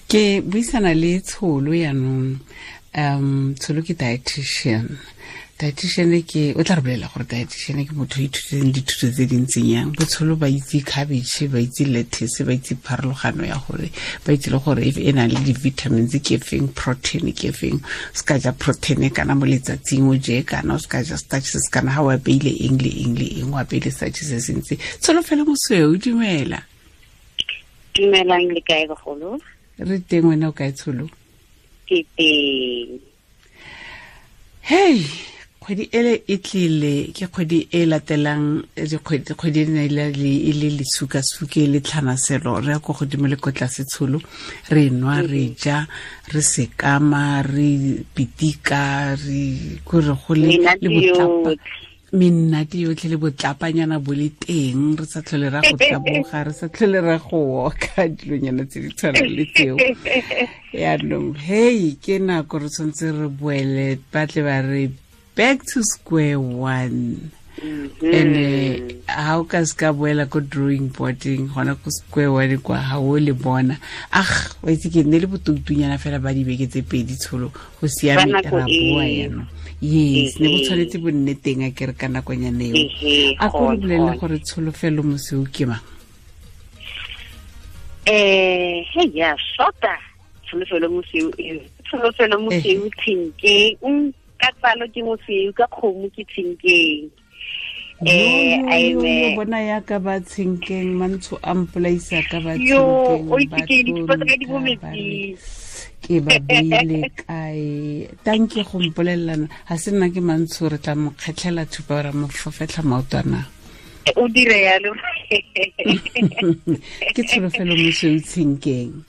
Ke buisana le Tsholo yaanong. Tsholo ke dietitian. Dietitian ke o tla re bolela gore dietitian ke motho o ithutileng dithuto tse dintseng yang. Botsholo ba itse cabbage, ba itse lettuce, ba itse pharologano ya gore, ba itse le gore e na le di-vitamins ke feng, protein ke feng. O se ka ja protein kana mo letsatsing o je kana, o se ka ja starch se se kana, ha o apeile eng le eng le eng, o apeile starch se se ntsi. Tsholo fela mosweu, dumela. Dumelang, le kae bagolo? Re teng, wena o kae Tsholo? Ke teng. Hey, kgwedi ele e tlile, ke kgwedi e latelang dikgwedi e ne e le lesukasuke le tlhanaselo, re ya ko godimo le ko tlase Tsholo, re nwa, re ja, re sekama, re pitika, re kore go le le botlapa, mennate yotlhe le botlapanyana bo le teng, re sa tlhole ra go taboga, re sa tlhole ra go oka, dilonyana tse di tshwanang le tseo. Yaanong hey, ke nako re tshwanetse re boele, ba tle ba re back to square one. And ha o ka se ka boela ko drawing boarding, gona ko square one kwa ha o le bona. Ah, wa itse ke nne le botoutunyana fela ba dibeke tse pedi Tsholo, go siame, ra boa yaanong. Yes, ne bo tshwanetse bo nne teng a kere ka nakonyana eo. A ko re bolelele gore Tsholofelo Mosweu ke mang? Hey, ya shota Tsholofelo Mosweu, Tsholofelo Mosweu Tshenkeng, ka tsalo ke Mosweu, ka kgomo ke Tshenkeng. Yo bona ya ka ba Tshenkeng, mantsho a mpolaisa ka ba Tshenkeng. O itse ke di ka di mo metsing. Ke ba beile kae? Tanke go mpolelelana, ga se nna ke mantsho, re tla mo kgetlhela thupa ra mo fofetlha maotwana. O dire yalo. Ke Tsholofelo Mosweu Tshenkeng.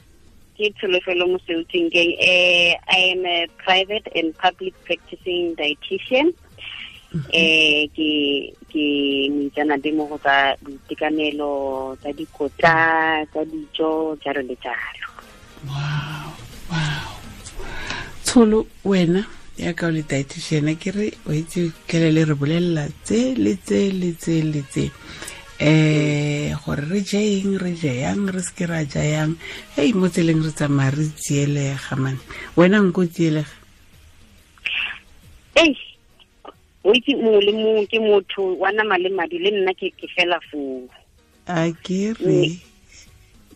Ke Tsholofelo Mosweu Tshenkeng. I am a private and public practicing dietitian. Ke moitseanape mo go tsa boitekanelo, tsa dikotla, tsa dijo, jalo le jalo. Wow, wow. Tsholo, wena ya ka o le dietitian, ke re o itse kele le re bolelela tse le tse le tse le tse, gore re je eng, re je yang, re seke ra ja yang. Hey, mo tseleng re tsamaya re tsielega man, wena nko tsielega? Ei, o itse mongwe le mongwe ke motho wa nama le madi, le nna ke fela foo. A ke re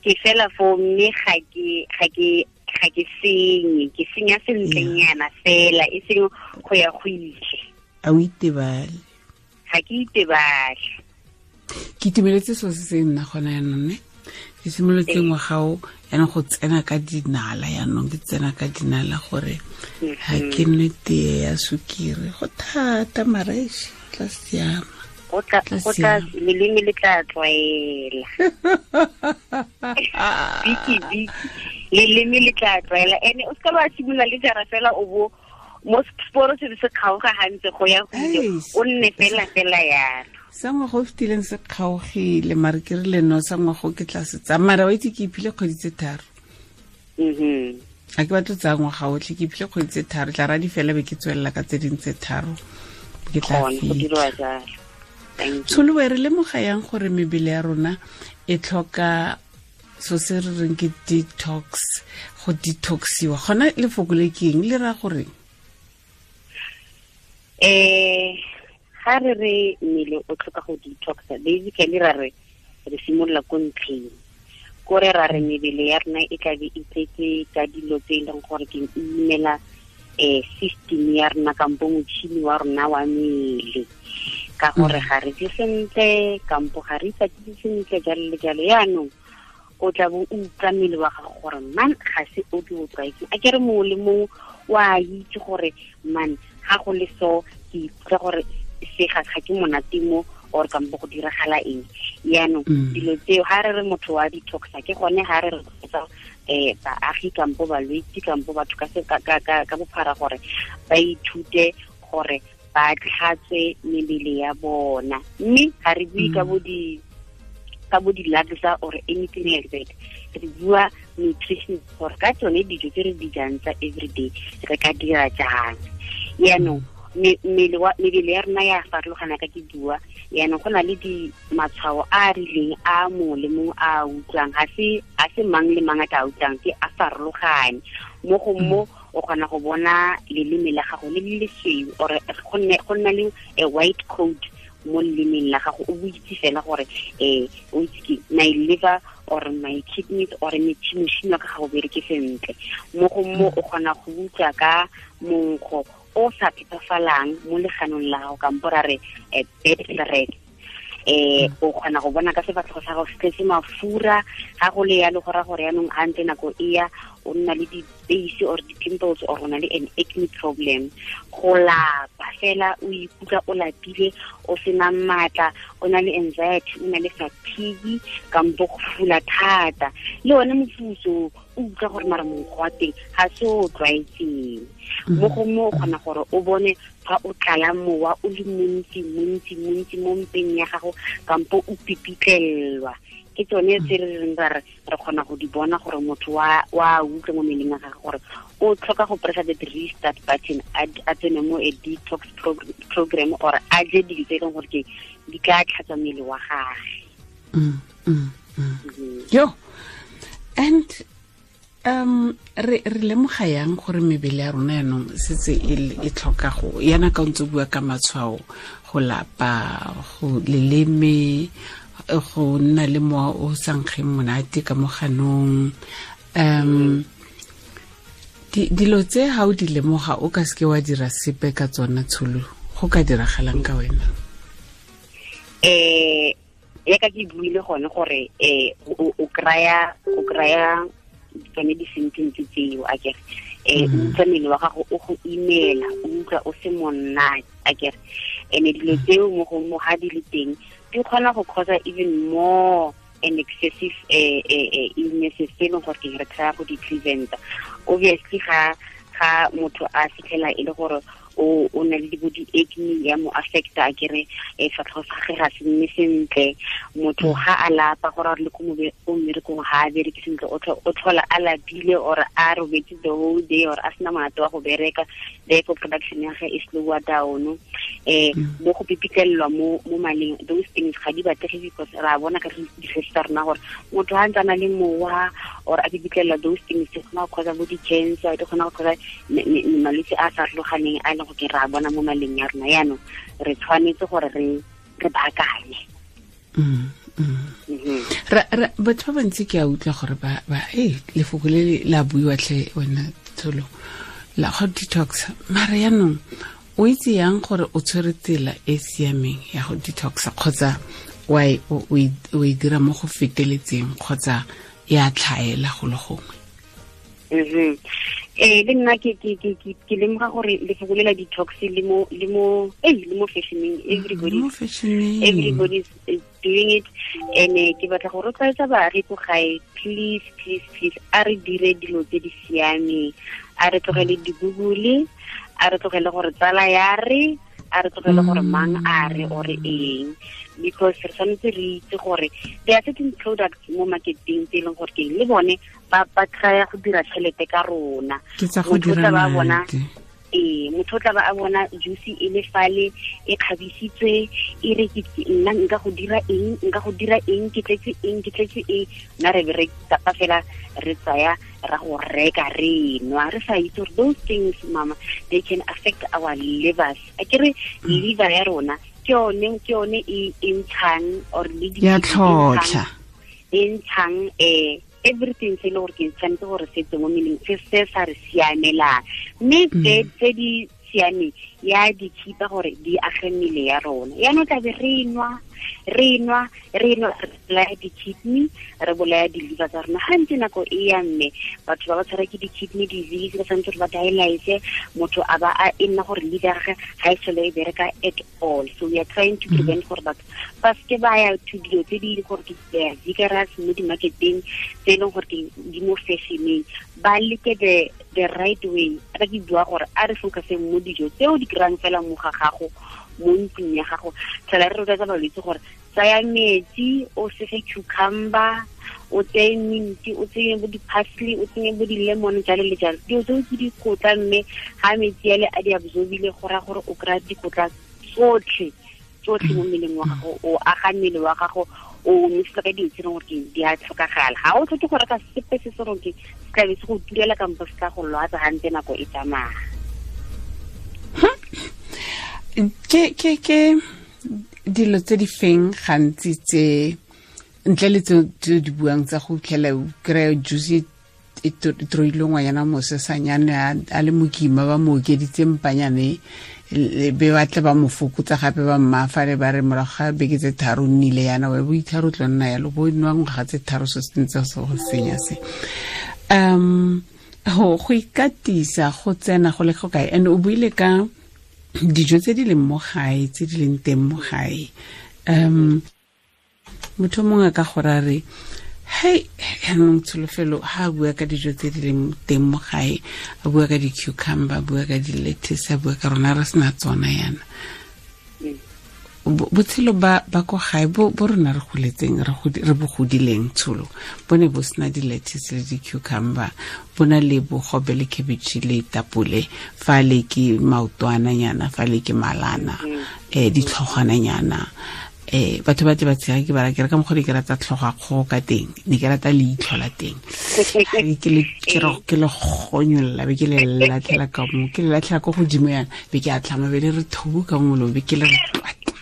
ke fela foo, mme ga ke senye, ke senya sentlenyana fela, e seng go ya go ile. A o itebale? Ga ke itebale. Ke itumeletse seo se se nna gona yaanong, ne ke simolotse ngwagao yaanong go tsena ka dinala, yaanong ke tsena ka dinala gore ga ke nwe tee ya sukiri, go thata mareši, tla siama. Go tla, leleme le tla tlwaela. Biki biki, leleme le tla tlwaela. Ene o seka ba simolola le jara fela o bo mo sporo se se kgaoga gantse go ya go ile, o nne fela fela yalo. Sa ngwaga o fetileng se kgaogile, mare ke rile no, sa ngwaga o ke tla se tsaya, mara wa itse ke iphile kgwedi tse tharo. A ke batlo tsaya ngwaga otlhe, ke iphile kgwedi tse tharo, tla radi fela be ke tswelela ka tse dingwe tse tharo, ke tla fitlha. Tsholo, re lemoga yang gore mebele ya rona e tlhoka so se re reng ke detox, go detoxiwa? Gona lefoko le ke eng, le raya gore? Ga re re mmele o tlhoka go detoxa, basically ra re re simolola ko ntlheng, kore ra re mebele ya rona e tlabe e tletse ka dilo tse e leng gore ke imela system ya rona kampo motšhini wa rona wa mmele, ka gore ga re je sentle kampo ga re ikatise sentle, jalo le jalo. Yaanong o tla bo o utlwa mmele wa gago gore man ga se o ke o tlwaetseng. A ke re mongwe le mongwe wa itse gore man ga go le so ke ikutlwa gore se ga ke monate mo, or kampo go diragala eng. Yaanong dilo tseo ga re re motho wa detoxa, ke gone ga re re tsa baagi kampo balwetse kampo batho ka bophara gore ba ithute gore ba tlhatswe mebele ya bona. Mme ga re bue ka bo di-laksa or anything like that, re bua nutrition, gore ka tsone dijo tse re di jang tsa everyday re ka dira jang. Yaanong mebele ya rona ya farologana ka ke bua, Yaanong go na le di matshwao a a rileng a mongwe le mongwe a utlwang, ga se mang le mang a tla utlwang, ke a farologane. Mo go mo o kgona go bona leleme la gago le le lesweu or go nna le a white coat mo lelemeng la gago, o itse fela gore o itse ke my liver or my kidneys or motšhini wa ka ga o bereke sentle. Mo go mo o kgona go utlwa ka monkgo o sa phepafalang mo leganong la gago, kampo ra re bad breath. O kgona go bona ka sefatlhego sa gago se tletse mafura, ga go le yalo go raya gore yaanong ga ntse nako e ya o nna le di-base or di-pimples or o na le an acne problem. Go lapa fela, o ikutlwa o lapile, o sena maatla, o na le anxiety, o na le fatigue, kampo go fula thata. Le one mofutso o utlwa gore mara monkgo wa teng ga se o tlwaetseng. Mo go mo o kgona gore o bone fa o tlala mowa o le montsi montsi montsi mo mpeng ya gago, kampo o pipitlelwa. Ke tsone tse re reng ra re kgona go di bona gore motho wa utlwa mo mmeleng wa gagwe gore o tlhoka go pressa the restart button, a tsene mo a detox program or a je dilo tse e leng gore ke di ka tlhatswa mmele wa gagwe. Yo, and re lemoga yang gore mebele ya rona yaanong setse e tlhoka go yana ka ntse bua ka matshwao, go lapa, go leleme, go nna le mowa o sa nkgeng monate ka mo ganong, dilo tse ha o di lemoga o ka seke wa dira sepe ka tsona, Tsholo, go ka diragalang ka wena? Ya ka ke buile gone gore o kraya tsone di-symptoms tseo, akere o utlwa mmele wa gago o go imela, o utlwa o se monate, akere. And dilo tseo mo go mo ga di le teng di kgona go cause even more an excessive illnesses tse e leng gore ke re try go di preventa. Obviously ga motho a fitlhela e le gore o na le bo di-acne ya mo affecta, akere fatlhego sa gagwe ga se nne sentle, motho ga a lapa gore a le ko mmerekong ga a bereke sentle, o tlhola a lapile or a robetse the whole day or a sena monate wa go bereka, therefore production ya gagwe e slower down. Mo go pipitlelelwa mo maleng, those things ga di batlege because ra bona ka di-research tsa rona gore motho ga ntse a na le mowa or a pipitlelelwa, those things di kgona go causa bo di-cancer, di kgona go causa malwetse a a farologaneng a leng go ke ra bona mo maleng ya rona. Yaanong re tshwanetse gore re baakanye. Batho ba bantsi ke a utlwa gore ba lefoko le la buiwa tlhe wena Tsholo, la go detox, mara yaanong o itse yang gore o tshwere tsela e siameng ya go detoxa, kgotsa o e dira mo go feteletseng, kgotsa ya tlhaela go le gongwe? Le nna ke lemoga gore lefoko le la detox le mo fashioning, everybody is doing it. And ke batla go rotloetsa baagi ko gae, please please please, a re dire dilo tse di siameng, a re tlogele di-Google, a re tlogele gore tsala ya re, a re tlogele gore mang a re or eng, because re tshwanetse re itse gore there are certain products mo marketing tse e leng gore ke le bone ba try go dira tšhelete ka rona. Motho tla ba bona motho tla ba a bona juice e le fale e kgabisitswe, e re ke nna nka go dira eng, nka go dira eng, ke tletse eng, ke tletse eng, nna re be re tapa fela re tsaya ra go reka re nwa, re sa itse gore those things, mama, they can affect our livers. A ke re liver ya rona ke yone e ntshang or le di ya tlhotlha e ntshang everything se le gore ke tshwanetse gore se tswe mo mmeleng, se se sa re siamelang, mme tse di siameng ya di khipa gore di age mmele ya rona. Yaanong tlabe re nwa re bolaya di-kidney, re bolaya di-liver tsa rona. Ga ntse nako e ya mme batho ba ba tshwara ke di-kidney disease, ba tshwanetse gore ba dialyse, motho a ba a e nna gore liver ya gagwe ga e tlhole e bereka at all. So we are trying to prevent gore batho ba seke ba ya to dilo tse di gore ke vigorous mo di-marketeng tse e leng gore di mo fashioneng, ba leke the right way. Ka ke bua gore a re focuseng mo dijo tseo di kry-ang fela mo ga gago, mo ntlong ya gago. Tlhola re rotloetsa balwetse gore tsaya metsi, o sege cucumber, o tseye mint, o tsenye bo di-parsley, o tsenye bo di-lemon, jalo le jalo. Dilo tseo ke dikotla, mme ga metsi ale a di absorbile, go raya gore o kry-a dikotla tsotlhe tsotlhe mo mmeleng wa gago, o aga mmele wa gago, o nosetsa ka dilo tse leng gore ke di a tlhokagala. Ga o tlhoke go reka sepe se se rong ke se tlabe se go turela kampo se tla go lwatsa gantse nako e tsamaya. Ke dilo tse di feng gantsi tse ntle le tse di buang tsa go fitlhela o kry-a juice e troile ngwanyana mosesanyane a le mokima ba mo okeditse mpanyane be ba tle ba mo fokotsa gape ba mmafale ba re morago ga beke tse tharo nnile yana wa bo itharo tlo nna yalo bo nwa ngwaga tse tharo se se ntse se go senya se. Go ikatisa go tsena go le go kae? And o buile ka dijo tse di leng mo gae, tse di leng teng mo gae. Motho mongwe ka gore a re hei yaanong Tsholofelo ha a bua ka dijo tse di leng teng mo gae, a bua ka di-cucumber, a bua ka di-lettuce, a bua ka rona re sena tsona yana. Botshelo ba ko gae bo rona re goletseng, re bo godileng Tsholo, bo ne bo sena di-lettuce le di-cucumber, bo na le bogobe le cabbage le tapole, fa le ke maotwananyana, fa le ke malana, ditlhogwananyana. Batho ba tle ba tshega ke bara ke re ka mokgwa ke rata tlhoga kgogo ka teng, ne ke rata leitlho la teng, ke le gonyolla be ke le latlhela ka mo, ke le latlhela ko godimo yana, be ke a tlhama be le re thobu ka molomo, be ke le re twatla.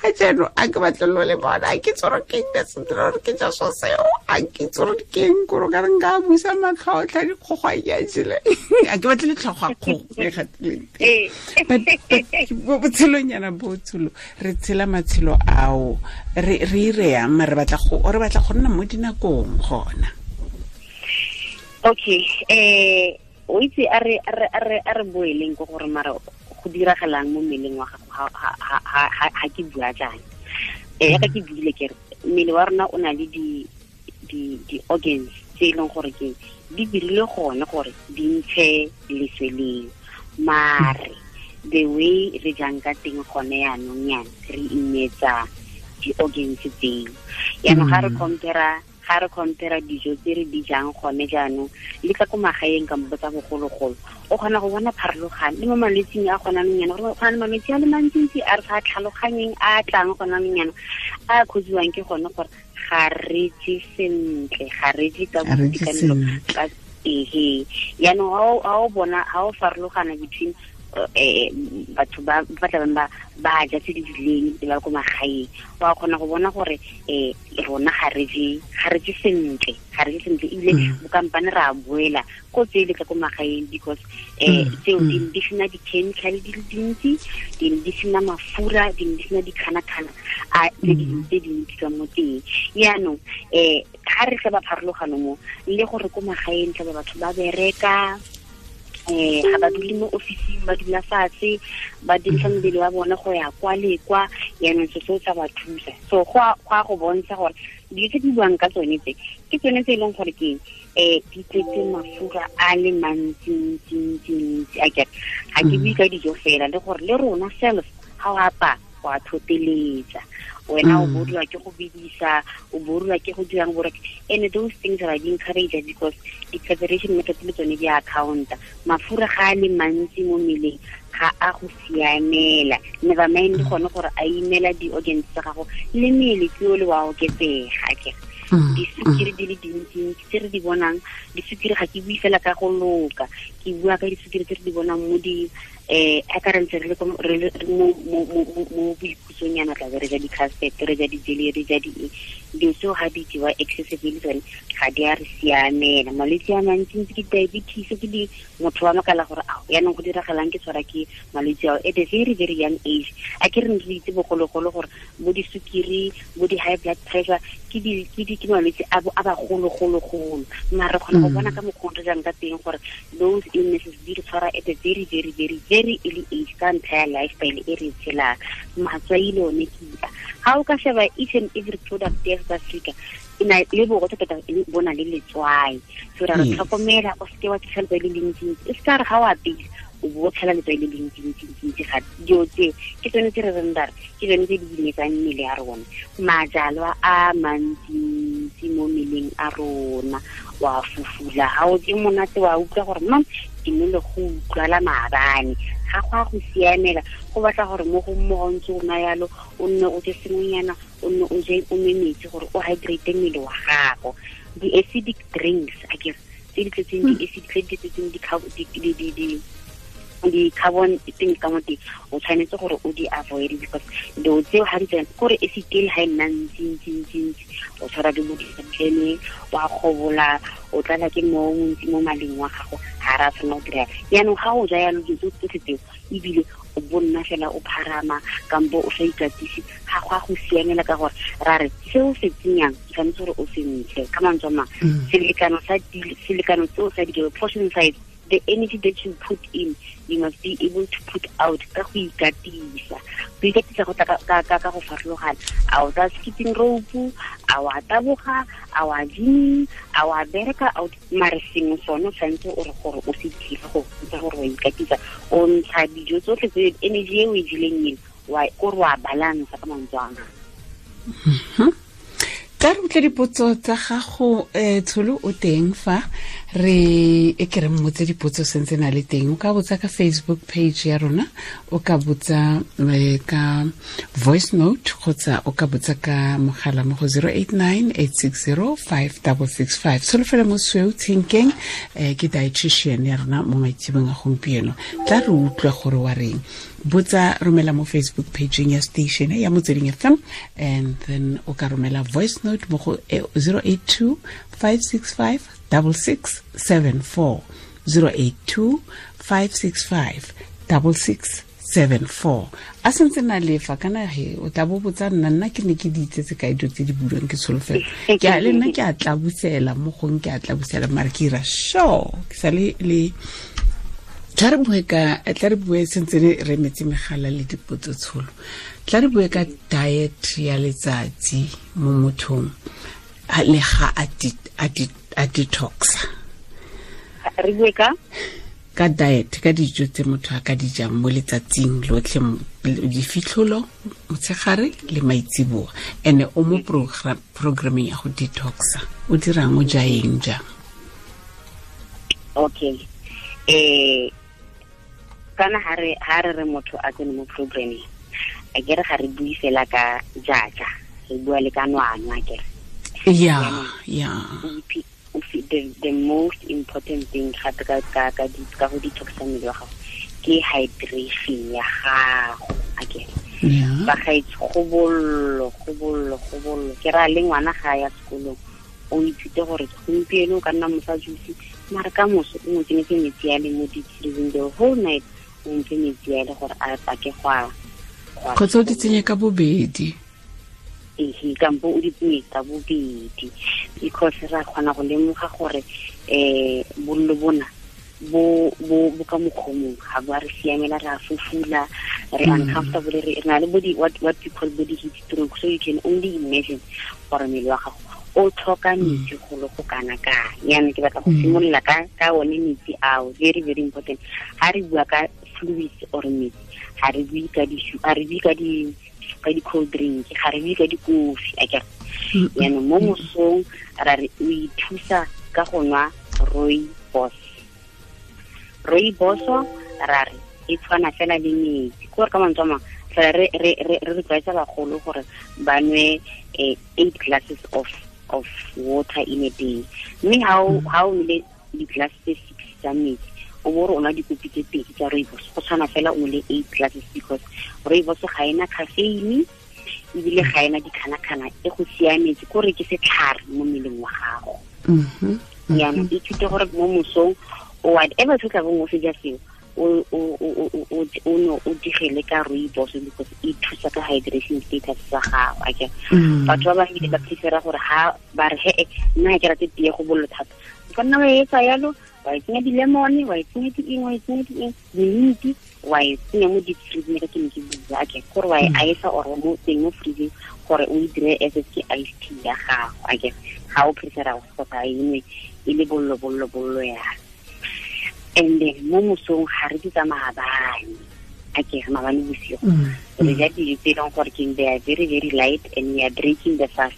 Ka jeno a ke batle lo le bona, ke tsoro ke nne sentle gore ke ja so seo, a ke tsoro ke eng kore ka re nka busa matlhotlha dikgogo a ke a jele, a ke batle le tlhogo a kgogo e gatileng teng. But botshelonyana bo Tsholo, re tshela matshelo ao, re ireyang, re batla go nna mo dinakong gona. Okay, o itse a re boeleng ko gore mara go diragalang mo mmeleng wa gago ha ke bua jaana. Ka ke buile ke re mmele wa rona o na le di organs tse e leng gore ke di dirile gone gore di ntshe leswe leo, mare the way re jang ka teng gone yaanong yana re imetsa di-organs tseo. Yaanong ga re compare dijo tse re di jang gone jaanong le tla ko magaeng kampo tsa bogologolo, o kgona go bona pharologano le mo malwetsing a gona anong yana, gore go na le malwetse a le mantsintsi a re sa tlhaloganyeng a tlang gona anong yana, a kgotsiwang ke gone gore ga re je sentle, ga re je ka boitekanelo ka ehe. Yaanong ha o bona ha o farologana between batho ba tlabeng ba ja tse di rileng le ba ko magaeng, wa kgona go bona gore rona ga re je sentle, ebile bokampane re a boela ko tse le tla ko magaeng because tseo di sena di-chemical di le dintsi, di sena mafura, di sena dikgana-kgana a tse dintsi ka mo teng. Yaanong ga re tla ba pharologano mo le gore ko magaeng tla ba batho ba bereka, ga ba dule mo ofising, ba dula fatshe, ba dirisa mmele wa bone go ya kwa le kwa, yaanong se seo sa ba thusa. So go a go bontsha gore dilo tse di buang ka tsone tse ke tsone tse e leng gore ke di tletse mafura a le mantsi-ntsi-ntsi. A kere ga ke bue ka dijo fela, le gore le rona self ga o apaya wa thoteletsa, wena o boriwa ke go bidisa, o boriwa ke go dirang borek, and those things are being encouraged because the preparation method le tsone di accounta. Mafura ga a le mantsi mo mmeleng ga a go siamela, never mind gone gore a imela di-organs tsa gago le mmele ke o le wa oketsega. Ke disukiri di le dintsintsi tse re di bonang, disukiri ga ke bue fela ka go loka, ke bua ka disukiri tse re di bonang mo di ka re ntse re le mo boikhutsonyana, tla be re ja di-custard, re ja di-jelly, re ja dilo tseo ga di jewa excessively tsone ga di a re siamela. Malwetse a mantsintsi ke diabetes, ke di motho wa makala gore ao yaanong go diragalang ke tshwara ke malwetse ao at a very very young age. A ke re ne re itse bogologolo gore bo disukiri, bo di-high blood pressure ke malwetse a bagologologolo, mare re kgona go bona ka mokgwa re jang ka teng gore those illnesses di re tshwara at a very very very very early age ka ntlha ya lifestyle e re tshelang. Matswai le one ke a ga o ka sheba each and every product ya South Africa e na le borotho tota bo na le letswai, so ra re tlhokomela o seke wa tshela letswai le lentsintsi, e se ka re ga o apeile o bo tshela letswai le lentsintsi. Ga dilo tse ke tsone tse re reng ra re ke tsone tse di imetsang mmele ya rona. Majalwa a mantsintsi mantsi mo mmeleng a rona. Wa fufula ga o je monate, wa utlwa gore mam ke nne le go utlwala maabane, ga go a go siamela. Go batla gore mo go mmogo ntse o nwa yalo, o nne o je sengwenyana, o nne o je o nwe metsi gore o hydrate mmele wa gago. Di-acidic drinks, akere, tse di tletseng di-acid, tse di tletseng di-carbon teng ka mo teng, o tshwanetse gore o di avoid because dilo tseo ga di tsena kore acid ele ga e nna ntsi ntsi ntsi ntsi, o tshwara ke bo ditlhene, wa kgobola, o tlala ke mo montsi mo maleng wa gago, ga ra tshwanela go dira. Yaanong ga o ja yalo dilo tsotlhe tseo, ebile o bonna fela o pharama kampo o sa ikatise, ga go a go siamela, ka gore ra re seo se tsenyang tshwanetse gore o se ntshe. Ka mantswe a mangwe, selekano seo sa dijo, portion size, the energy that you put in, you must be able to put out ka go ikatisa. Go ikatisa go tla ka go farologana. A o tsa skipping rope, a wa taboga, a wa gymming, a wa bereka out, mare sengwe sone o tshwanetse o re gore o se dire go bontsha gore wa ikatisa. O ntsha dijo tsotlhe tse, energy e o e jeleng eno, kore wa balance ka mantswe a mangwe. Tla re utlwe dipotso tsa gago, Tsholo o teng fa re e ke re mmotse dipotso sentse na le teng. O ka botsa ka Facebook page ya rona, o ka botsa ka voice note, kgotsa o ka botsa ka mogala mo go 089 860 5665. Tsholofelo Mosweu Tshenkeng, ke dietitian ya rona mo maitsebong a gompieno. Tla re utlwe gore wa reng. Botsa, romela mo Facebook page ya station ya Motsweding FM, and then o ka romela voice note mo go 082 565 6674, 082 565 6674. A sentse na lefa kana he o tla bo botsa nna, nna ke ne ke di itsetse ka dilo tse di buiwang ke Tsholofelo. Ke a le nna ke a tlabusela mo gong, ke a tlabusela mare ke ira sure ke sa le le. Tla re bue ka, tla re bue sentse re emetse megala le dipotso Tsholo. Tla re bue ka diet ya letsatsi mo mothong le ga a detoxa. Re bue ka? Ka diet, ka dijo tse motho a ka di jang mo letsatsing lotlhe, difitlholo, motshegare le maitsiboa. Ene o mo programming ya go detoxa. O dirang, o ja eng jang? Okay. Kana ha re re motho a tsene mo programming, a ke re ga re bue fela ka jaja, re bua le ka nwanwa, a ke re. Yeah, yeah. The most important thing gape ka go detoxa mmele wa gago ke hydration ya gago, a ke re. Ba gaetsho, go bollo. Ke ra le ngwana ga ya sekolong, o ithute gore gompieno o ka nna mofa juice, mare ka moso o mo tsenyetse metsi a le mo di-freezing the whole night, o mfe metsi a le gore a pake go a kgotsa o di tsenye ka bobedi. Ehe, kampo o di tsenye ka bobedi, because ra kgona go lemoga gore bollo bona bo ka mokgomong ga bo a re siamela, re a fufula, re uncomfortable, re na le body what we call body heat stroke. So you can only imagine gore mmele wa gago o tlhoka metsi go le go kana kang. Yaanong ke batla go simolola ka one metsi ao, very very important. Ha re bua ka fluids or metsi, ha re bue ka ha re bue ka di cold drink, ga re bue ka dikofi, akere. Yaanong mo mosong ra re o ithusa ka go nwa rooibos. Rooibos ra re e tshwana fela le metsi, kore ka mantswe a mangwe fela re re tlwaetsa bagolo gore ba nwe 8 glasses of water in a day. Mme ha o nwele di-glass tse 6 tsa metsi, o bo re o nwa dikopi tse 2 tsa rooibos, go tshwana fela o nwele 8 glasses, because rooibos ga ena caffeine ebile ga ena dikgana-kgana, e go siametse, kore ke setlhare mo mmeleng wa gago. Yaanong ithute gore mo mosong o whatever se tla bong o se ja seo, o no o digele ka rooibos, because e thusa ka hydration status sa gago, akere. Batho ba bangwe ba prefera gore ha ba re he nna ke rate tee go bollo thata, o ka nna wa etsa yalo, wa e tsenya di-lemon, wa e tsenya di-eng, wa e tsenya di-eng, di-mint, wa e tsenya mo deep freezing, ka ke ne ke bua, akere, gore wa e ice or mo teng mo freezing gore o e dire as if ke ice tea ya gago, akere. Ga o prefera go sa e nwe e le bollo yalo. And then mo mosong ga re di tsa maabane, akere, maabane bosigo re ja dijo tse e leng gore ke they are very very light and we are breaking the fast.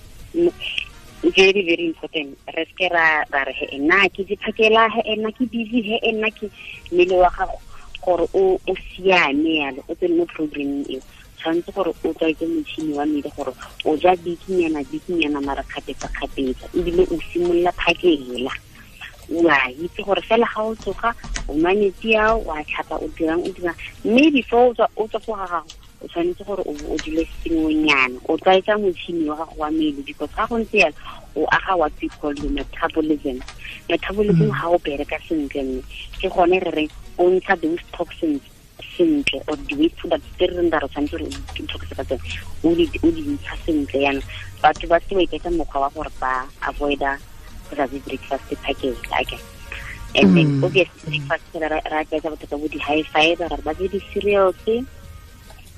Very, very important. Re se ra re he nna ke di phakela, he nna ke busy, he nna ke mmele wa gago gore o siame yalo, o tsene mo programming eo. Tshwanetse gore o tlwaetse motšhini wa mmele gore o ja bikinyana mara kgapetsa-kgapetsa, ebile o simolola phakela. Wa itse gore fela ga o tsoga o nwa metsi ao, wa tlhapa, o dirang, mme before o tswa go ga gago o tshwanetse gore o dule sengwenyana, o tlwaetsa motšhini wa gago wa mmele, because ga go ntse yalo o aga what we call the metabolism. Metabolism ga o bereka sentle, mme ke gone re reng o ntsha those toxins sentle, or the waste products tse re reng ra re tshwanetse gore o detoxe ka tsone, o di ntsha sentle. Yana batho ba se ba iketsa mokgwa wa gore ba avoida go sa je breakfast package, okay. And then obviously breakfast ra aketsa batho ka bo di-high fiber, ra ba je di-cereals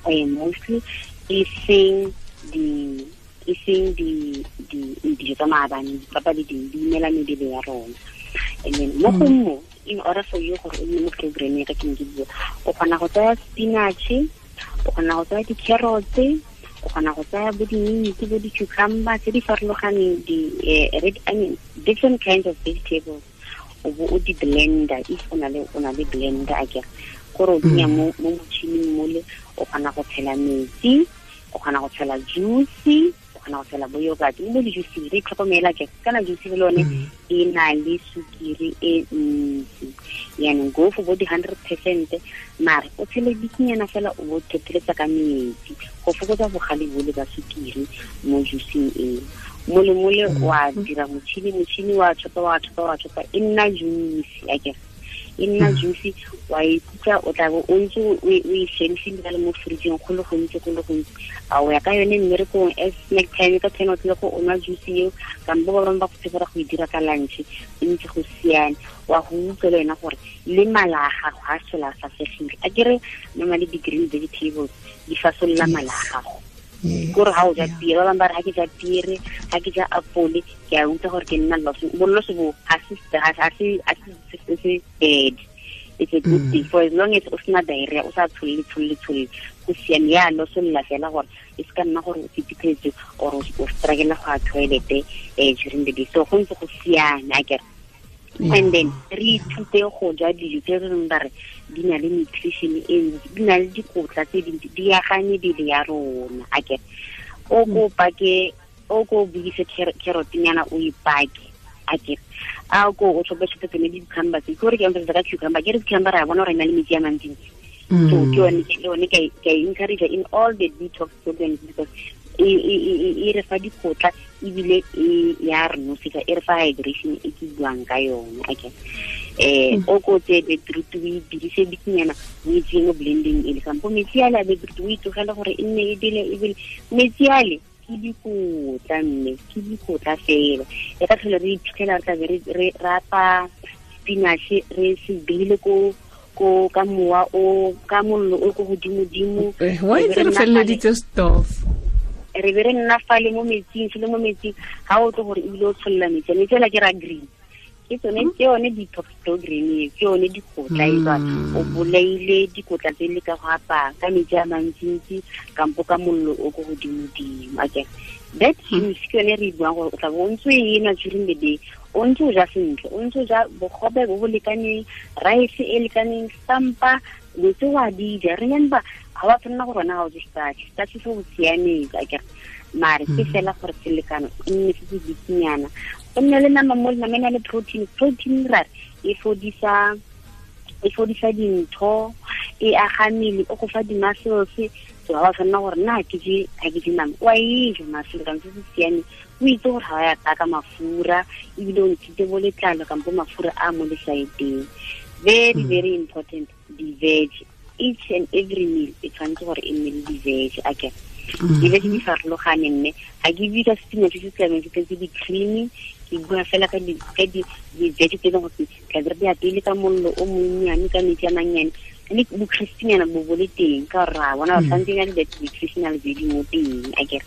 mostly, e seng dijo tsa maabane, dipapa le ding di imela mebele ya rona. And then mo go mo, in order for you gore o nne mo programmeng ya ka ke ne ke bua, o kgona go tsaya spinach, o kgona go tsaya di-carrots, o kgona go tsaya bo di-mint, bo di-cucumber tse di farologaneng, red onion, different kinds of vegetables, o bo o di blender if o na le blender akere, gore o tsenya mo motšhining mole, o kgona go tshela metsi, o kgona go tshela juice, o kgona go tshela bo yogurt, le bo di-juice re itlhokomela ke kana juice le lone e na le sukiri e ntsi. Yaanong go for bo di-100%, mare o tshele bikinyana fela, o bo thetheletsa ka metsi go fokotsa bogale bole ba sukiri mo juiceng eo. Mole mole wa dira motšhini wa chopa, e nna juice akere, e nna juice, wa ikutlwa o tla bo o ntse o e shelfile le mo fridgeng go le gontsi, a o ya ka yone mmerekong as snack time ka 10 o'clock o nwa juice eo, kampo ba bangwe ba go tshepela go e dira ka lunch, e ntse go siame. Wa go utlwa le wena gore le mala a gago ga a sola a fasegile. Akere normally di-green vegetables di fasolola mala a gago, kore ga o ja piere, ba bangwe ba re ga ke ja piere, ga ke ja apole, ke a utlwa gore ke nna bolloso bo ga se bad. It's a good thing for as long as o sena diarrhea, o sa tsholle, go siame. Ya losolola fela gore e se ka nna gore o fetipetse or o struggle go ya toilet during the day, so go ntse go siame akere. And then re ithute go ja dijo tse re reng ba re di na le nutrition e ntsi, di na le dikotla tse dintsi, di aga mebele ya rona akere. O ko pake, o ko buise carrot-nyana o e pake akere, a ko o tlhope tsone di-cucumber tse, ke gore ke emphasisa ka cucumber, ke re cucumber ra bona gore e na le metsi a mantsintsi, so ke yone ke encourage in all the detox programs, because e re fa dikotla ebile e ya re nosetsa, e re fa hydration e ke buang ka yone akere. O ko tseye beetroot o e dirise bikinyana, o e tseye mo blending ele, kampo metsi ale a beetroot o e tlogele gore e nne e bele metsi ale ke dikotla, mme ke dikotla fela. E ka tlhole re iphitlhela re tlabe re rapa spinach re se beile ko ka mowa o ka mollo o ko godimo-dimo. Wa itse re feleleditse stove, re be re nna fale mo metsing, se le mo metsing, ga o tle gore ebile o tsholola metsi, metsi ala ke ra green, ke tsone ke yone detox program e, ke yone dikotla e tswa o bolaile dikotla tse le ka go apaya ka metsi a mantsintsi kampo ka mollo o ko godimo-dimo akere. That juice ke yone re buang gore o tla bo o ntse o e nwa during the day, o ntse o ja sentle, o ntse o ja bogobe bo bo lekaneng, rice e lekaneng, stampa dilo tse wa di ja. Remember ga wa tshwanela gore wena ga o je starch, starch se o siametse akere, mare ke fela gore selekano e nne se se bikinyana, o nne le nama mo le nama e na le protein. Protein ra e fodisa dintho, e aga mmele, o go fa di-muscles. So ga wa tshwanela gore nna ga ke je nama, wa e ja mare selekano se se siameng, o itse gore ga wa ya ka mafura, ebile o ntshitse bo letlalo kampo mafura a mo lesaeteng. Very, very important, di-veg. Each and every meal e tshwanetse gore e nne le di-veg akere. Di-veg di farologane, mme ga ke bue ka spinach se se tlabeng se tletse di-creamy, ke bua fela ka di-veg tse e leng gore tlabe re di apeile ka mollo o monnyane, ka metsi a mannyane, le bo-crispynyana bo bo le teng, ka gore ra bona ba tshwanetse na le that nutritional value mo teng akere.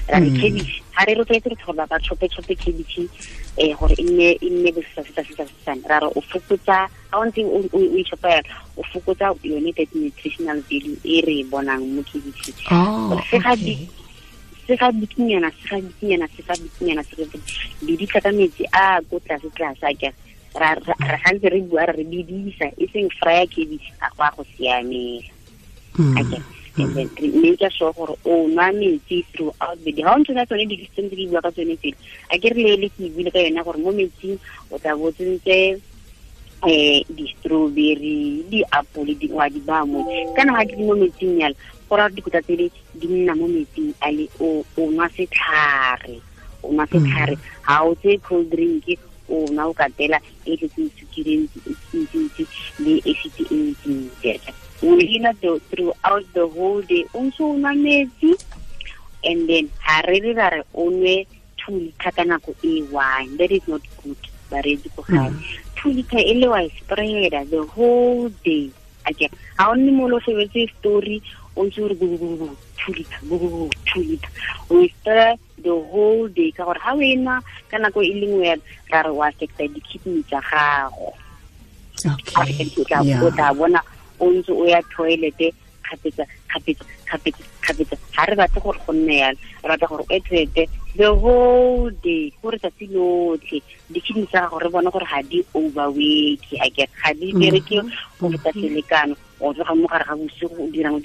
Ra re cabbage ga re rotloetse re gore ba chope-chope cabbage gore e nne bosesasesasesasesane, ra re o fokotsa ga o ntse o e chopa yalo, o fokotsa yone that nutritional value e re e bonang mo cabbage. Se ga bikinyana se ga bikinyana se ga bikinyana se ga bidisa ka metsi a ko tlase tlase a ke ra gantse re bua re bidisa e seng fryer cabbage a go a go siamela. Okay. And then make sure gore o nwa metsi throughout the day. Ha o ntse ka tsone di-system tse di bua ka tsone tsele, a ke re le ke buile ka yona gore mo metsing o tla bo tsentse di-strawberry, di-apole, di wa di ba mo. Kana ha di mo metsing yalo, gore dikotla tsele di nna mo metsing a le o nwa setlhare. O nwa setlhare. Ha o tse cold drink, o nwa o katela e tletseng sukiri e ntsi le acid e ntsi. O hina throughout the whole day o ntse o nwa metsi, and then ha re re ra re o nwe 2 liter ka nako e one. That is not good, bareetsi ko gae. 2 liter e le wa e spreada the whole day. Okay, ha o nne mo lo shebetse story o ntse o re 2 liter, 2 liter. O e spreada the whole day ka gore ha o e nwa ka nako e le nngwe ra re wa affecta di-kidney tsa gago. Okay. O tla bona o ntse o ya toilet kgapetsa kgapetsa kgapetsa kgapetsa. Ha re batle gore go nne yalo, re batla gore o toilet the whole day, gore tsatsi lotlhe di-kidney tsa gago re bone gore ga di overwork, a ke ga di bereke go feta selekano. O tloga mo gare ga bosigo o dirang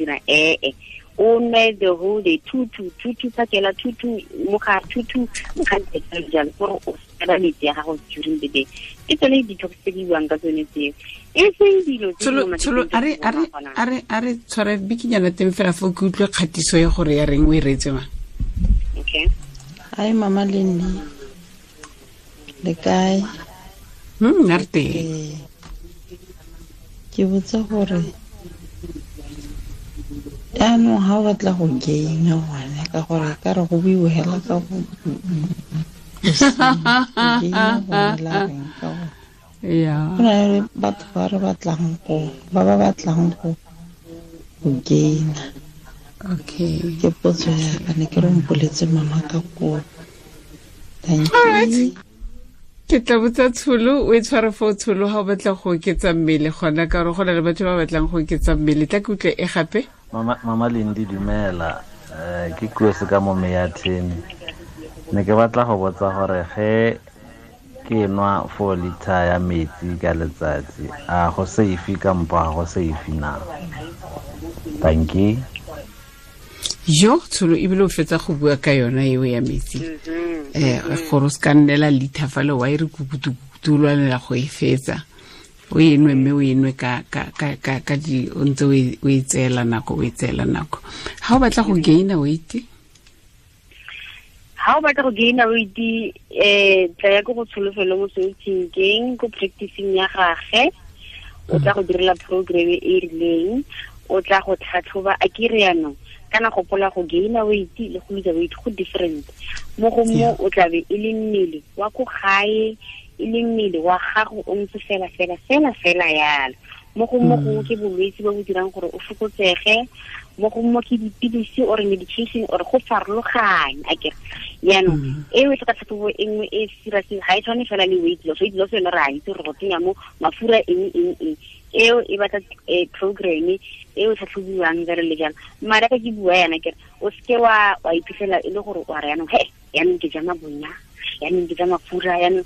o nwe the whole day, 2 2 2 2 phakela 2 2 mo gare 2 2 mo gare jalo, gore o sela metsi ya gago during the day. Ke tsone detox tse di buang ka tsone tseo, e seng dilo tse a re tshware bikinyana teng fela fo ke utlwe kgatiso ya gore ya reng o e reetse mang. Okay. Hi Mama Lenny, le kae? Nna re teng. Ke botsa gore jaanong ga o batla go gaina gone, ka gore ka re go buiwe hela ka go gaina gone la reng ka gore yeah. Go na le batho ba re batlang go ba ba batlang go gaina. Okay. Ke potso ya ka, ne ke re mpoletse mama ka kopo. Thank All right. you. Ke tla botsa Tsholo, o e tshware fo Tsholo ha o batla go oketsa mmele gona, ka gore go na le batho ba batlang go oketsa mmele. Tla ke utlwe e gape. Mama Lindi, dumela. Ke Kosi ka mo Meyatheni. Ne ke batla go botsa gore ge ke nwa 4 liter ya metsi ka letsatsi, a go safe kampo ga go safe na? Thank you. Yo, Tsholo, ebile o fetsa go bua ka yona eo ya metsi. Gore o se ka nnela liter fale wa e re kukutu-kukutu o lwanela go e fetsa. O e nwe mme o e nwe ka di o ntse o e tseela nako, o e tseela nako. Ha o batla go gaina weight? Ha o batla go gaina weight, tla ya ko go Tsholofelo mo Sotsinkeng, ko practicing ya gagwe. O tla go direla program e rileng, o tla go tlhatlhoba. A ke re yanong, kana gopola go gaina weight le go lose weight go different. Mo go mo o tla be e le mmele wa ko gae, e le mmele wa gago o ntse fela fela fela fela yalo. Mo go mo go ke bolwetse bo bo dirang gore o fokotsege, mo go mo ke dipilisi or medication or go farologanya. Akere yaanong eo e tlhoka tlhatlhobo e nngwe e serious, ga e tshwane fela le weight loss. Weight loss yone re a itse gore go tsenya mo mafura eng eng eng, eo e batla program eo tlhatlhobiwang jalo le jalo. Mara ka ke bua yana kere o seke wa iphitlhela e le gore wa re yaanong he yaanong ke ja mabonya, yaanong ke ja mafura, yaanong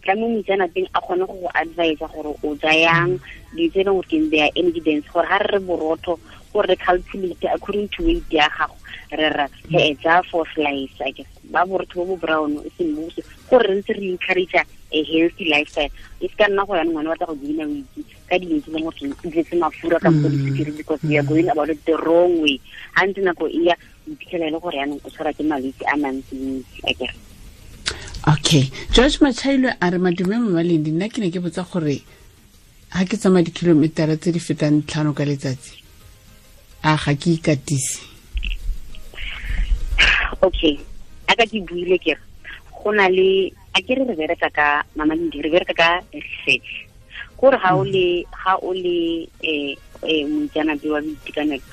tla mo moitseanapeng a kgone go go advise gore o ja yang dilo tse e leng gore ke their energy dense, gore ga re re borotho gore re calculate according to weight ya gago, re ra he ja 4 slice, I guess ba borotho bo bo brown e seng bo gore re ntse re encourage a healthy lifestyle. E se ka nna go yanong ngwana o batla go gaina weight ka dilo tse e leng gore di tletse mafura kampo disukiri, because we are going about it the wrong way. Ha ntse nako e ya, o iphitlhela e le gore yanong o tshwarwa ke malwetse a mantsi, I guess. Okay. George Machailo a re madume Mama Lindi, nna ke ne ke botsa gore ha ke tsamaya dikilometara tse di fetang 5 ka letsatsi, a ga ke ikatise? Okay. A ka ke buile ke re go na le, a ke re re bereka ka Mama Lindi, re bereka ka research. Gore ha o le moitseanape wa boitekanelo,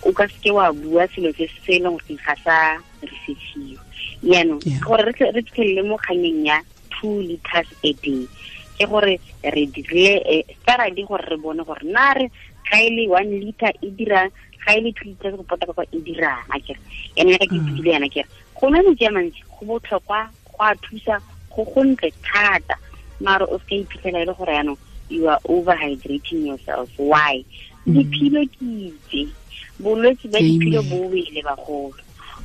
o ka seke wa bua selo se se leng gore ga sa researchiwa. Yaanong gore re fitlhelele mo kganyeng ya 2 liters a day, ke gore re dirile study gore re bone gore na re ga e le 1 liter e dira Ga e le 2 liters go pota ka e dirang a kere ene ka ke tsile yana kere go nwa metsi a mantsi go botlhokwa go a thusa go gontle thata mara o se iphitlhela e le gore yaanong you are overhydrating yourself. Why? Diphilo ke itse bolwetse ba diphilo bo wele bagolo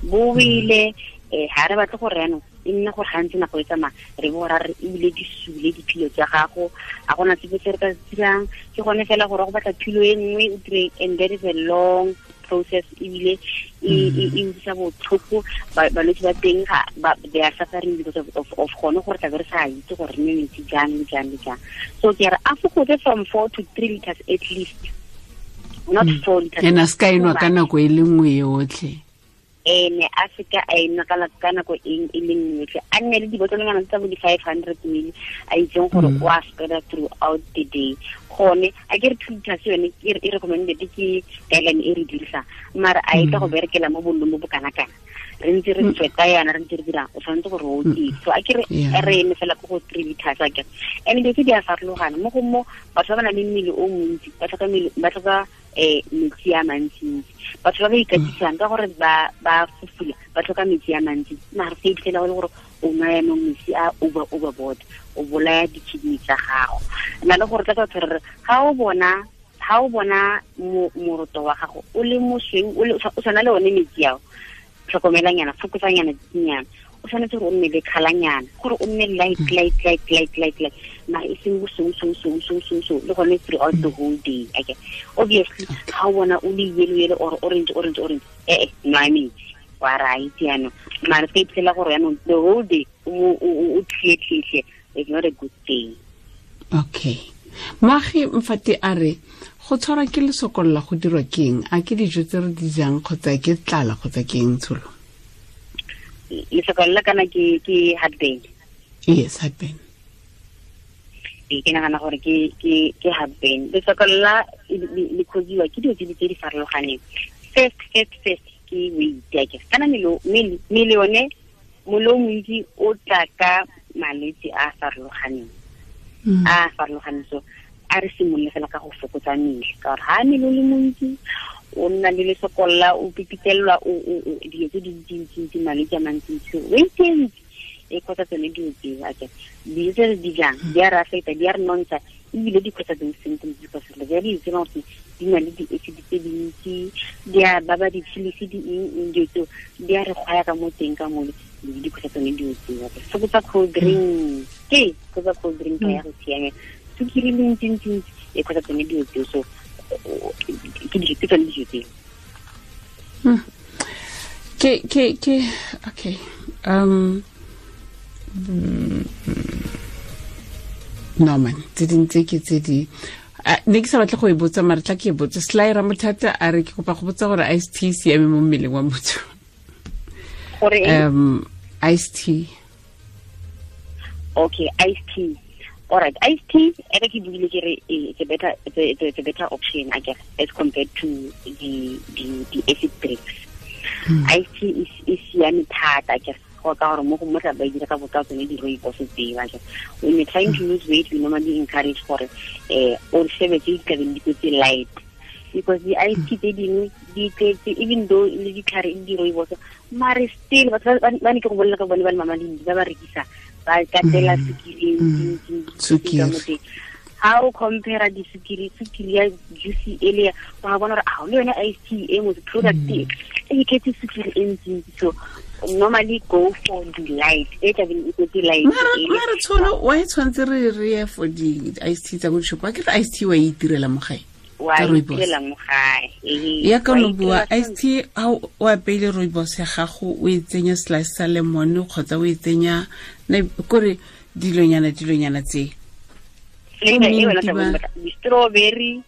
bo wele ha re batle gore yaanong e nne gore gantsi nako e tsamaya re bo ra re ebile di sule diphilo tsa gago a gona sepe se re ka se dirang ke gone fela gore go batla philo e nngwe o dire and that is a long process ebile e utlwisa botlhoko balwetse ba teng ga they are suffering because of gone gore tlabe re sa itse gore re nwe metsi jang le jang le jang. So ke re a fokotse from 4 to 3 liters at least, not 4 liters. Ena se ka enwa ka nako e le nngwe yotlhe. Ene a seka a enwa ka nako e le nngwe yotlhe, a nne le dibotlolonyana tsa bo di-500 ml a itseng gore o a spread throughout the day. Gone a ke re 2 liters yone e recommended ke guideline e re dirisang, mara a e tla go berekela mo bolong bo bo kana-kana re ntse re tsweta yana re ntse re dirang o tshwanetse gore o oketse. So a ke re re eme fela ko go 3 liters a kere. And dilo tse di a farologana mo go mo batho ba ba nang le mmele o montsi ba tlhoka metsi a mantsintsi, batho ba ba ikatisang ka gore ba fufula ba tlhoka metsi a mantsi, mara se iphitlhela go le gore o nwa yanong metsi a overboard o bolaya di-kidney tsa gago. Na le gore tla ka batho re ga o bona moroto wa gago o le mosweu o tshwana le one metsi ao, tlhokomelanyana fokotsanyana dinyana, o tshwanetse gore o nne le kgalanyana gore o nne light light light light light light mara e seng bosweu le gone throughout the whole day. Okay, obviously ga o bona o le yellow yellow or orange orange orange nwa metsi wa ra itse yanong, mara se ka iphitlhela gore yanong the whole day o tlhe it's not a good thing. Okay, Moagi Mfati a re go tshwarwa ke lesokolla go dirwa keng? A ke dijo tse re di jang kgotsa ke tlala kgotsa ke eng tsholo? Lesokolla kana ke heartburn. Yes, heartburn. Ke nagana gore ke heartburn. Lesokolla le causiwa ke dilo tse di farologaneng. First ke weight ya ke kana mmele one molo montsi o tla ka malwetse a farologaneng. A farologaneng, so a re simolole fela ka go fokotsa mmele ka gore ha mmele o le montsi o nna le lesokolla o pipitelelwa dilo tse dintsintsi malwetse a mantsintsi weight e ntsi e kgotsa tsone dilo tseo ake dijo tse re di jang di a re affecta di a re nontsha ebile di kgotsa those symptoms because re ja dijo tse gore di na le di-acid tse dintsi di a baba di-chilisi di eng dilo tseo di a re kgwaya ka mo teng ka mole di kgotsa tsone dilo tseo ake fokotsa cold drink ke fokotsa cold drink ka ya go siamela sukiri le ntsi-ntsi e kgotsa tsone dilo tseo. So ke tsone dijo tseo. Ke okay no man tse dintse ke tse di ne ke sa batle go e botsa mare tla ke e botse. Sly Ramothata a re ke kopa go botsa gore iced tea siame mo mmeleng wa motho. Gore iced tea. Okay, iced tea. All right, iced tea e ke buile ke re it's a better option I guess as compared to the acid drinks. Iced tea is siame thata I guess go ka gore mo go motla ba dira ka botsa tsone di rooibos tseo I guess. When you're trying to lose weight we normally encourage gore o shebe tse di tlabeng di kwetse light because the iced tea tse dingwe di tletse even though le ditlhare di rooibos mare still batho ba ne ke go bolela ka bone ba le mama le ba ba rekisa ba katela sukiri ntsi. Ha o compare di sukiri ya juice e le wa bona gore a le yone iced tea e mo product e e tletse sukiri e ntsi. So normally go for the light e tla beng e kwetse light. Mara tsholo wa e tshwanetse re ye for di iced tea tsa go shopo ke re iced tea wa e itirela mo gae. Wa itirela mo gae. Ya ka no bua iced tea ha o apeile rooibos ya gago o e tsenya slice sa lemon kgotsa o e tsenya kore dilonyana tse strawberry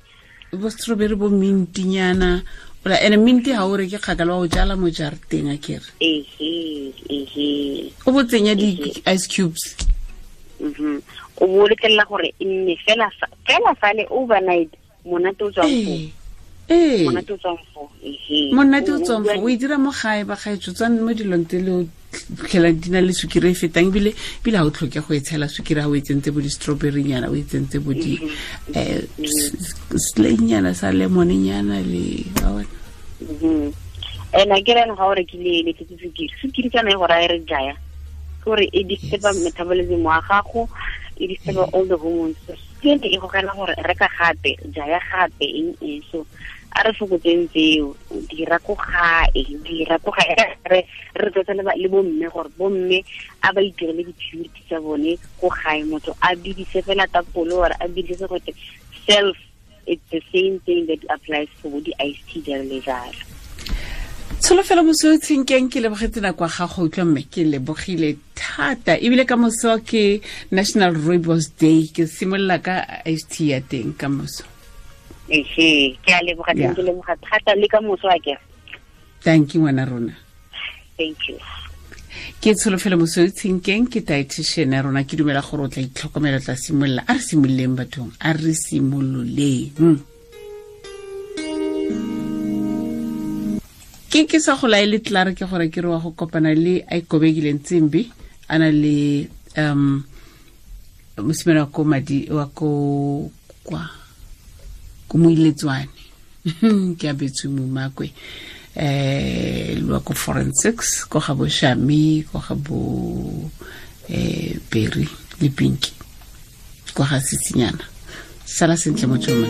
bo strawberry bo mintinyana ola ene minti ha o re ke kgakala wa o jala mo jarateng a kere o bo tsenya di-ice cubes o bo letlelela gore e nne fela fale overnight monate o tswang foo monate o tswang foo monate o tswang foo o e dira mo gae ba gaetsho tswang mo dilong tse le tlhela di na le sukiri e fetang ebile ga o tlhoke go e tshela sukiri ga o e tsentse bo di-strawberry nyana o e tsentse bo di slaynyana sa lemon nyana le wa bona. And a kere ga o rekile le tletse sukiri, sukiri kana e go raya re jaya gore e disturba metabolism wa gago, e disturba all the hormones. Ke e gogela gore reka gape, jaya gape, eng eng. So a re fokotseng tseo, dira ko gae, re tlotsa le bomme gore bomme a ba itirele di-purity tsa bone ko gae. Motho a bidise fela tapole or a bidise gote self, it's the same thing that applies for the iced tea jalo le jalo. Tsholofelo Mosweu Tshenkeng, ke lebogetse nako ya gago utlwa mme, ke lebogile thata. Ebile ka moso ke National Rooibos Day, ke simolola ka iced tea ya teng ka moso. Ehe, ke a leboga, ke leboga thata le ka moso a ke. Thank you ngwana rona. Thank you. Ke Tsholofelo Mosweu Tshenkeng, ke dietitian ya rona. Ke dumela gore o tla itlhokomela, tla simolola. A re simololeng bathong, a re simololeng. Ke sa go laele tlare ke gore ke re wa go kopana le a ikobekileng Tsimbi, a na le mosimane wa ko madi wa ko kwa ko moiletswane ke a betswe momakwe lwa ko forensics ko ga bo Shami, ko ga bo Berry le Pinky, ko ga Sitsinyana. Sala sentle motho.